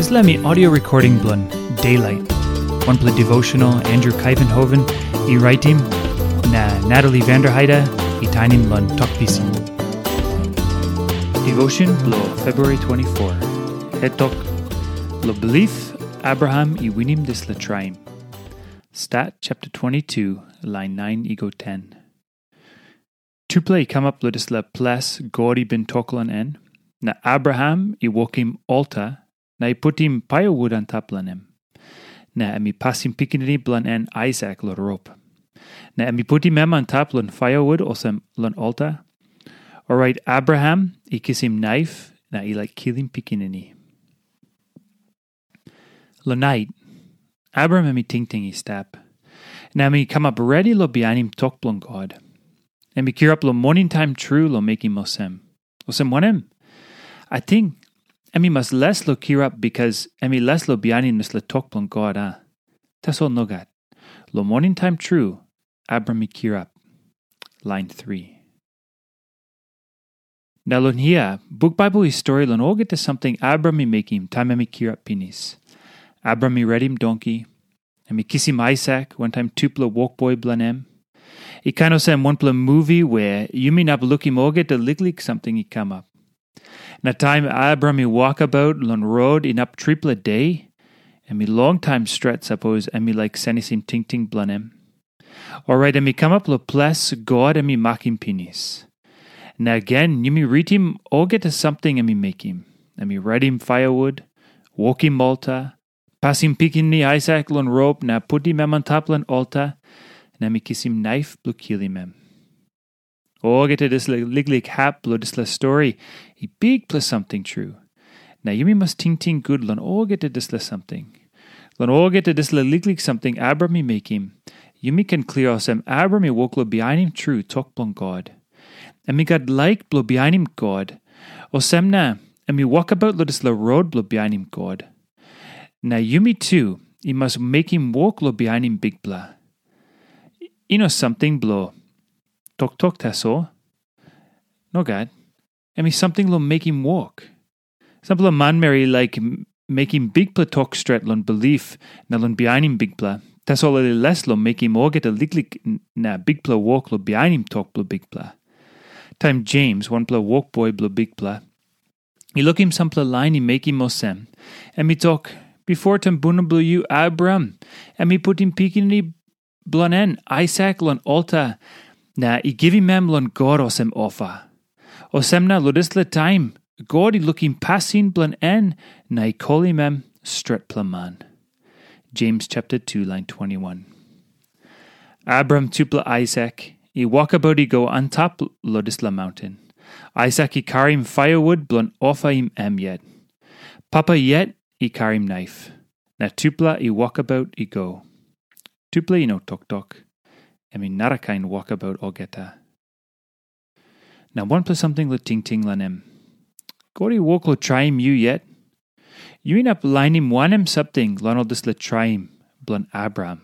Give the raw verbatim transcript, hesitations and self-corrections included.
Dispela mi audio recording bilong Daylight, wanpela devotional Andrew Kaivenhoven i raitim, na Natalie Vanderheide i tainim long Tok Pisin. Devotion bilong February twenty-four. Het tok, lo bilip Abraham i winim dispela traim. Stat chapter twenty-two, line nine i go ten. Tupela i kamap long dispela ples God i bin tok long en, na Abraham i wokim alta na i putim paiawut antap long em. Na em i pasim pikinini bilong en Aisak long rop. Na em i putim em antap long paiawut olsem long alta. Orait Abraham i kisim naif na i laik kilim pikinini. Long nait, Abraham em i tingting i stap, na em i kamap redi long bihainim tok bilong God. Em i kirap long moning taim tru long mekim olsem. Olsem wanem? Ating em i mas les long kirap bikas em i les long bihainim dispela tok bilong God, a? Tasol nogat. Long moning taim tru, Abraham i kirap. Lain tri. Na long hia, buk Baibel i stori long olgeta samting Abraham i mekim taim em i kirap pinis. Abraham i redim donki, em i kisim Aisak wantaim tupela wokboi bilong em. I kain olsem wanpela muvi we yumi inap lukim olgeta liklik samting i kamap. Na taim Abraham i wokabaut long rot inap tripela de, em i longtaim stret sapos em i laik senisim tingting bilong em. Orait em i kamap long ples God em i makim pinis. Na gen yumi ritim olgeta samting em i mekim. Em i redim paiawut, wokim alta, pasim pikinini Aisak long rop na putim em antap long alta, na em i kisim naif bilong kilim em. Olgeta dispela liklik hap bilong dispela stori i bikpela samting tru. Na yumi mas tingting gut long olgeta dispela samting. Long olgeta dispela liklik samting Abraham i mekim, yumi ken klia olsem Abraham i wok long bihainim tru tok bilong God. Em i gat laik bilong bihainim God, olsem na em i wokabaut long dispela rot bilong bihainim God. Na yumi tu i mas mekim wok long bihainim Bikpela. I no samting bilong toktok tasol. Nogat. Em i samting long mekim wok. Sampela manmeri i laik m- mekim bikpela tok stret long bilip na long bihainim Bikpela, tasol ol i les long mekim olgeta liklik n- na bikpela wok long bihainim tok bilong Bikpela. Taim Jems, wanpela wokboi bilong Bikpela, i lukim sampela lain i mekim olsem, em i tok, "Bipo tumbuna bilong yu, Abraham, em i putim pikinini bilong en, Aisak, long alta, na i givim em long God olsem ofa." Olsem na long dispela taim, God i lukim pasin bilong en na i kolim em stretpela man. Jems chapter two, line twenty-one. Abraham tupela Aisak i wokabaut i go antap long dispela maunten. Aisak i karim paiawut bilong ofaim em yet. Papa yet i karim naif, na tupela i wokabaut i go. Tupela i no toktok. Em i narakain wokabaut olgeta. Na wanpela samting long tingting long em. God i wok long traim yu yet? Yu inap lainim wanem samting long ol dispela traim bilong Abraham?